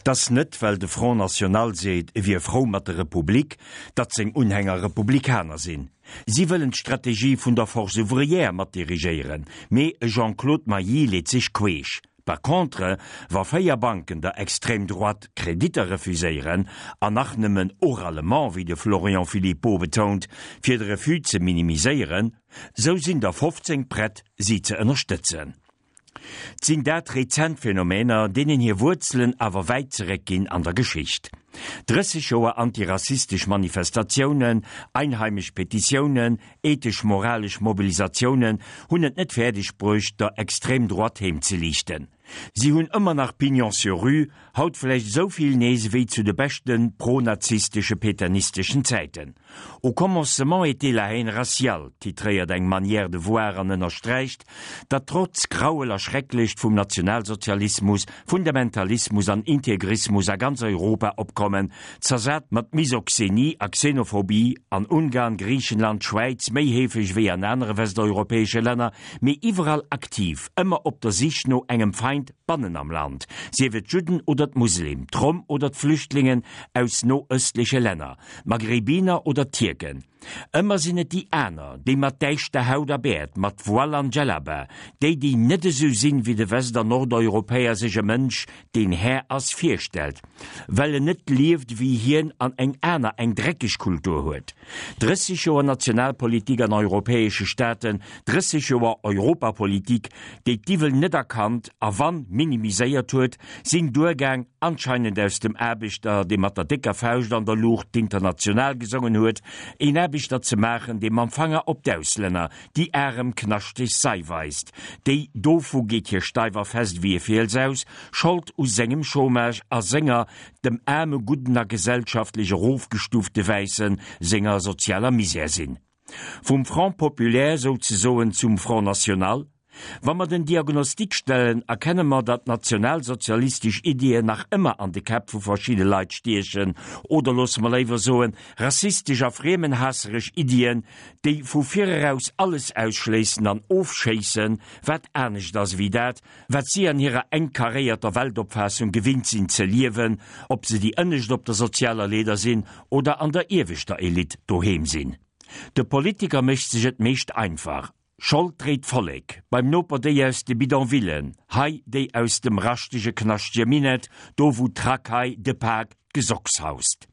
T'ass net, well de Front National seet, e wier frou mat der Republik, datt seng Unhänger Republikaner sinn. Si wëllen d'Strategie vun der Force ouvrière mat dirigéieren, mee e Jean-Claude Mailly leet sech queesch. Par contre, wa 4 Banken der Extrême droite Kreditter refuséieren, an nach nëmmen oralement, wéi de Florian Philippot betount, fir de Refus ze minimiséieren, sou sinn der 15 prett, si ze ënnerstëtzen. 't sinn dat rezent Phänomener, deenen hir Wuerzelen awer wäit zeréckginn an der Geschicht. 30 Joer antirassistesch Manifestatiounen, einheimesch Petitiounen, ethesch-moralesch Mobilisatiounen hunn et net fäerdeg bruecht, der Extrême droite heem ze liichten. Si hunn ëmmer nach Pignon sur rue, haut vläicht esou vill nees ewéi zu de beschte pro-nazistesche pétainisteschen Zäiten. Au commencement était la haine raciale, titréiert eng Manière de voir an ënnersträicht, datt trotz Grauel a Schrecklecht vum Nationalsozialismus, Fundamentalismus an Integrismus a ganz Europa opkommen, zersat mat Misoxenie a Xenophobie, an Ungarn, Griichenland, Schwäiz méi heefeg wéi an anere westeuropäesche Länner, mee iwwerall aktiv, ëmmer op der Sich no engem Feind bannen am Land, sief et d'Judden oder d'Muslim, d'Rom oder d'Flüchtlingen aus noöstleche Länner. D'Maghrebiner oder d'Tierken. Ëmmer sinn et déi aner, déi mat däischter Haut a Bäert, mat Voile an Djellaba, déi, déi net esou sinn, wéi de West an Nordeuropäer sech e Mënsch, deen Här ass, virstellt, well en net lieft wéi hien an eng aner, eng dreckeg Kultur huet. 30 Joer Nationalpolitik an europäesche Staaten, 30 Joer Europapolitik, déi d'Iwwel net erkannt a wann, minimiséiert huet, sinn duergaang, anscheinend aus dem Aarbechter, dee mat der décker Fauscht an der Luucht d'International gesongen huet, een Aarbechter ze maachen, dee mam Fanger op d'Auslänner, déi arem knaschteg Sei weist, déi, dovu geet hie steif a fest ewéi e Fiels aus, Schold u sengem Chômage a senger, dem aarme gudden a gesellschaftlech erofgestufte Wäissen senger sozialer Misär sinn. Vum Front populaire souzesoen zum Front national? Wa mer den Diagnostic stellen, erkenne mer, datt nationalsozialistesch Iddien nach ëmmer an de Käpp vu verschidde Leit stiechen, oder loosse mer léiwer soen, rassistesch a friemenhaasseresch Iddien, déi vu vireraus alles ausschléissen an ofschéissen, wat anescht ass ewéi dat, wat si an hirer enk karéierter Weltopfaassung gewinnt sinn ze liewen, ob se déi Ënnescht op der sozialer Leeder sinn oder an der ieweschter Elite doheem sinn. De Politiker mécht sech et meescht einfach, Schold dréit d'Vollek, beim Noper déi aus de Bidonvillen, hei déi aus dem raschtege knaschtege Minett, do wou d'Racaille, de Pak, d'Gesocks haust.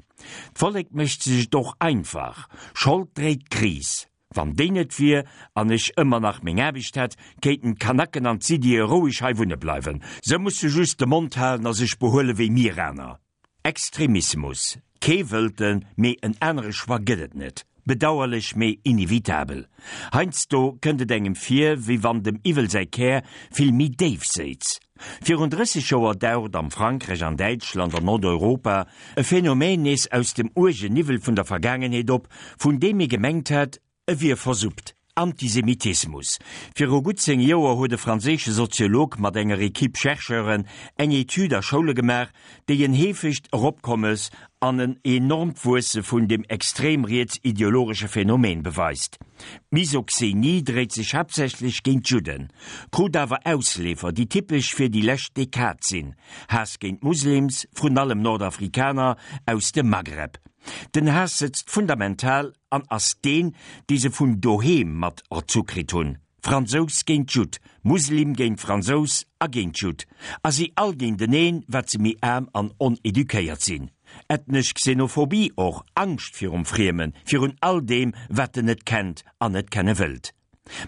D'Vollek mécht sech et och einfach, Schold dréit d'Kris. Wann déi net wier an ech ëmmer nach meng Aarbecht hätt, kéinten d'Kanaken an d'Siddie roueg hei wunne bleiwen. Se musse just de Mond halen a sech behuele wéi mir aner. Extremismus, kee wëllt en, mee en anere Choix gëtt et net. Bedauerlech, mee inevitabel. Heiansdo kënnt et engem vir, wéi wann dem Iwwel säi Kär vill méi déif séiz. Virun 30 Joer daucht am Frankräich, an Däitschland an Nordeuropa e Phänomen nees aus dem uergen Niwwel vun der Vergaangenheet op, vun deem ee gemengt hat, E wier versuppt. Antisemitismus. Viru gutt 10 Joer huet e franséische Soziolog mat enger Equipe Chercheuren eng Etüd a Schoule gemaach, déi en heefegt Eropkommes an en enormt Wuesse vun dem extrem riets-ideologesche Phänomen beweist. D'Misoxenie dréit sech haaptsächlech géint d'Judden, krut awer Ausleefer, déi typesch fir déi lescht Dekad sinn, Haass géint Muslims, vrun allem Nordafrikaner aus dem Maghreb. Den Haass sëtzt fundamental an ass deen, dee se vun doheem mat erzu kritt hunn, Fransous géint Judd, Muslim géint Fransous a géint Judd, a si all géinteneen, wat se méi aarm an oneduquéiert sinn. Ethnesch Xenophobie och, Angscht virum Friemen, virun all deem, wat en net kennt an net kenne wëllt.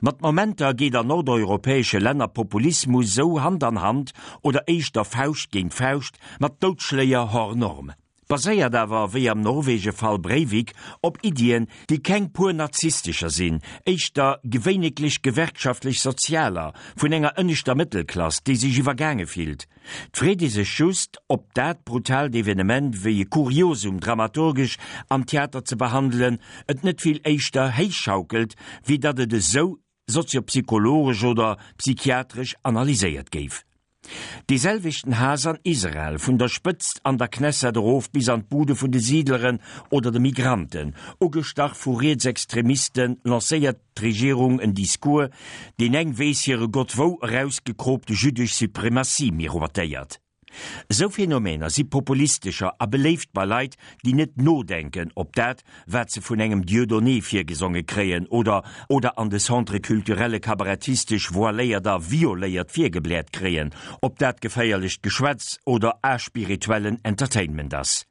Mat Momenter geet an nordeuropäesche Länner Populismus sou Hand an Hand, oder éischter Fauscht géint Fauscht, mat Doudschléier hors norme. Baséiert awer, wéi am Norwege-Fall Breivik, op Iddien, déi keng pur nazistescher sinn, éischter gewéineglech gewerkschaftlech-sozialer, vun enger ënneschter Mëttelklass, déi sech iwwergaange fillt. 't freet ee sech just, ob dat brutaalt Evenement wéi e Kuriosum dramaturgesch am Theater ze behandelen, et net vill éischter héichschaukelt, wéi datt et esou soziopsychologesch oder psychiatresch analyséiert géif. Dee selwechten Haass an Israel, vun der Spëtzt an der Knesset erof bis an d'Bude vun de Siidleren oder de Migranten, ugestach vu Rietsextremisten, lancéiert d'Regierung en Discours, deen eng weess hire Gott wou erausgekroopte jüddesch Suprematie miroitéiert. Esou Phänomener si populistescher a beléift bei Leit, déi net nodenken op dat, wat se vun engem Dieudonné virgesonge kréien oder oder an de Centre culturelle kabarettistesch voiléiert a violéiert virgebläert kréien, ob dat geféierlecht Geschwätz oder aspirituellen Entertainment ass.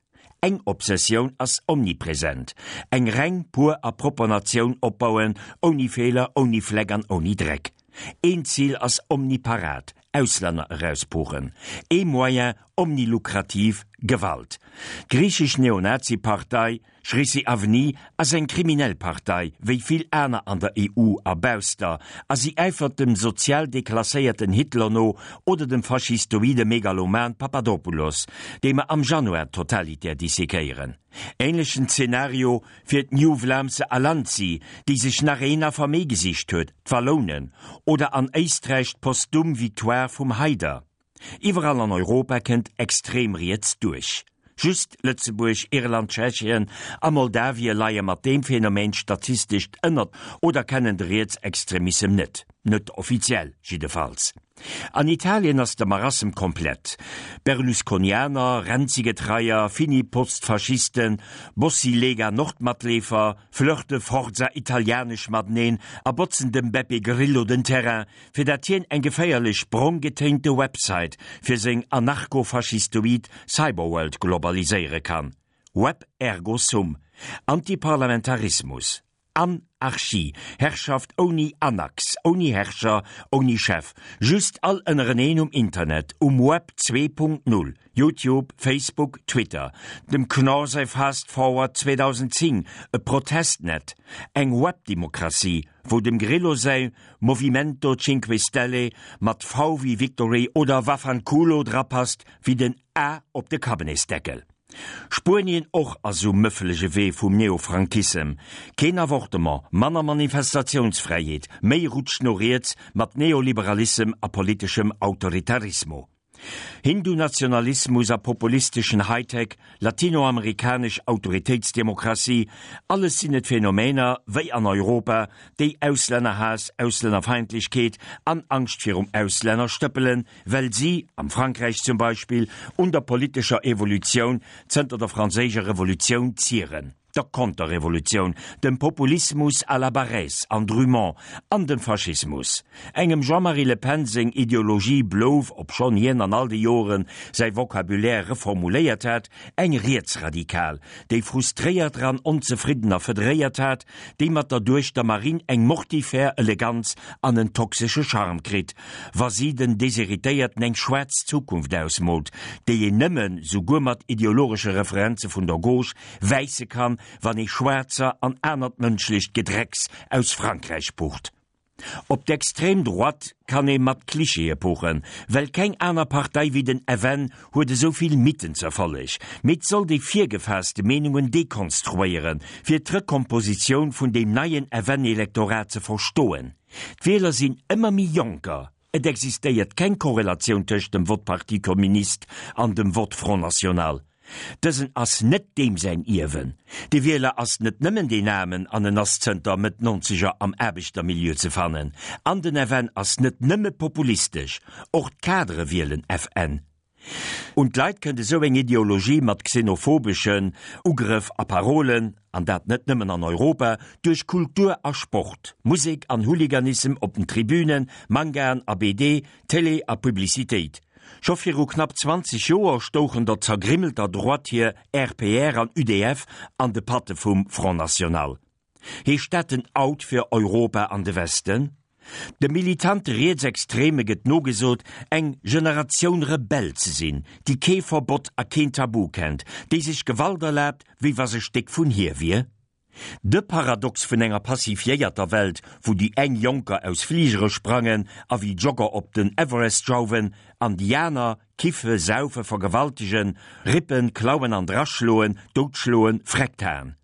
Eng Obsessioun ass omnipresent, eng reng, pur a propper Natioun opbauen, ouni Feeler, ouni Fleck an ouni Dreck. Een Zil ass omniparat, Auslänner erauspuchen. Ee Moyen omnilukrativ, Gewalt. D'griichesch Neonazi-Partei Chrysi Avni ass eng kriminell Partei, wéi vill aner an der EU a bausster, a si äifert dem sozial deklasséierten Hitler no oder dem faschistoide Megaloman Papadopoulos, dee mer am Januar totalitär dissekéieren. Ähnlechen Zenario fir d'New Vlaamse Allianzi, déi sech nach een Affer méi gesicht huet, d'Wallounen, oder an Éisträich d'postum Victoire vum Haider. Iwwerall an Europa kënnt extrem riets duerch. Just Lëtzebuerg, Irland, Tschechien a Moldawien leie mat deem Phänomen statistescht ënnert oder kennen de Rietsextremissem net. Net offiziell jiddefalls. An Italien ass de Marassem komplett. Berlusconianer, Renzi-Getreier, Fini-Postfaschisten, Bossi-Lega Nord-Matleefer flirte Forza Italianesch mateneen a botzen dem Beppe Grillo den Terrain, fir dat hien eng geféierlech brong getéinte Website fir seng anarcho-faschistoid Cyberworld globaliséiere kann. Web ergo sum. Antiparlamentarismus. An-archie. Herrschaft ouni Anax, ouni Herrscher, ouni Chef. Just all ënnereneen um Internet, um Web 2.0, YouTube, Facebook, Twitter. Dem Knorr säi Fast Forward 2010, e Protestnet, eng Webdemokratie, wou dem Grillo säi Movimento Cinque Stelle mat V wéi Victory oder Vaffanculo drapasst wéi den A op de Kabinetsdeckel. Spuenien och ass um mëffelege Wee vum Neofrankissem. Keen Avortement, manner Manifestatiounsfräiheet, méi Rutsch no riets mat Neoliberalissem a politeschem Autoritarismo. Hindu-Nationalismus a populisteschen Hightech, latinoamerikanesch Autoritéitsdemokratie, alles sinn et Phänomener, wéi an Europa, déi Auslännerhaass, Auslännerfeindlechkeet an Angscht virum Auslänner stëppelen, well si, am Frankräich zum Beispill, un der politescher Evolutioun zënter der franséischer Revolutioun zieren. der Konterrevolutioun, dem Populismus à la Barrès an Drumont an dem Faschismus. Engem Jean-Marie Le Pen seng Ideologie blouf, obschonn hien an all de Joren säi Vocabulaire reformuléiert hat, eng rietsradikal, déi Frustréierter an Onzefriddener federéiert hat, déi mat der Duechter Marine eng mortifère Eleganz an en toxesche Charme kritt, wa si den Desheritéierten eng schwaarz Zukunft ausmoolt, déi een nëmmen, souguer mat ideologesche Referenze vun der Gauche, wäisse kann, wann ee Schwaarzer an anert mënschlecht Gedrecks aus Frankräich pucht. Op d'extrême Droite kann ee mat Klischeeë puchen, well keng aner Partei wéi den FN huet esou vill Mythen z'Erfolleg. Mee 't sollt ee virgefaasste Meenungen dekonstruéieren, fir d'Rekompositioun vun deem neien FN-Elektorat ze verstoen. D'Wieler sinn ëmmer méi Jonker. Et existéiert keng Korrelatioun tëscht dem Vott Parti Communiste an dem Vott Front National. Dësen ass net deem säin Ierwen. De Wieler ass net nëmmen deen Aarmen an en ass zënter Mëtt Nonzeger am Aarbechtermilieu ze fannen. An den FN ass net nëmme populistesch, och d'Kadere wielen FN. Un d'Leit kënnt esou eng Ideologie mat xenophobeschen Ugrëff a Parolen, an dat net nëmmen an Europa, duerch Kultur a Sport, Musek an Hooliganissem op den Tribünen, Mangaen a BD, Télé a Publicitéit. Scho viru knapp 20 Joer stouchen der zergrimmelter Droite hir RPR an UDF an de Patte vum Front National. Heescht dat den Out fir Europa an de Westen? De militante Rietsextreme gëtt nogesot, eng Generatioun Rebell ze sinn, déi kee Verbott a keen Tabu kennt, déi sech Gewalt erlaabt, wéi wa se Stéck vun hir wier. De Paradox vun enger pacifiéierter Welt, wou déi eng Jonker aus Fligere sprangen a wéi Jogger op den Everest jauwen, an déi aner kiffe, saufe, vergewaltegen, rippen, klauen an draschloen, doutschloen, Freckthaen.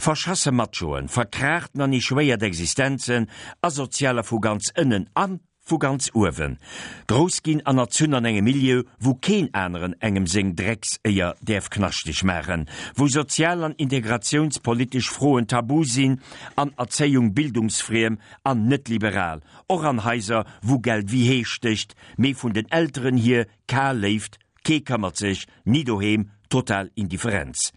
Verschasse Machoen, verkraachten an echouéiert Existenzen, Asozialer vu ganz ënnen a vu ganz uewen. Grouss ginn an erzunn an engem Milieu, wou keen aneren engem seng Dreckséier däerf knaschteg maachen, wou sozial an integratiounspolitesch Froen tabu sinn an Erzéiung bildungsfriem an net liberal, och an Haiser, wou Geld wéi Hee stécht, mee vun den Elteren hier kal Léift. Kee këmmert sech, ni doheem, total Indifferenz.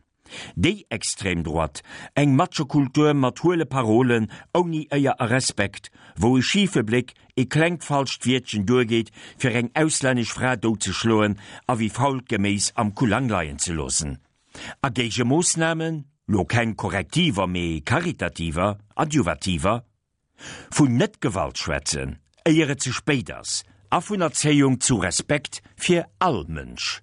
Déi extrem Droite, eng Machokultur mat huele Parolen, ouni Éier a Respekt, wou e schife Bléck, e klengt falscht Wiertchen duergeet, fir eng auslännesch Fra doutzeschloen a wéi fault Geméis am Kullang leien ze loossen. A Géigemoossnamen? Lo keng Korrektiver, mee karitativer, adjuvativer. Vun Net-Gewalt schwätzen, éier et ze spéit ass, a vun Erzéiung zu Respekt fir all Mënsch.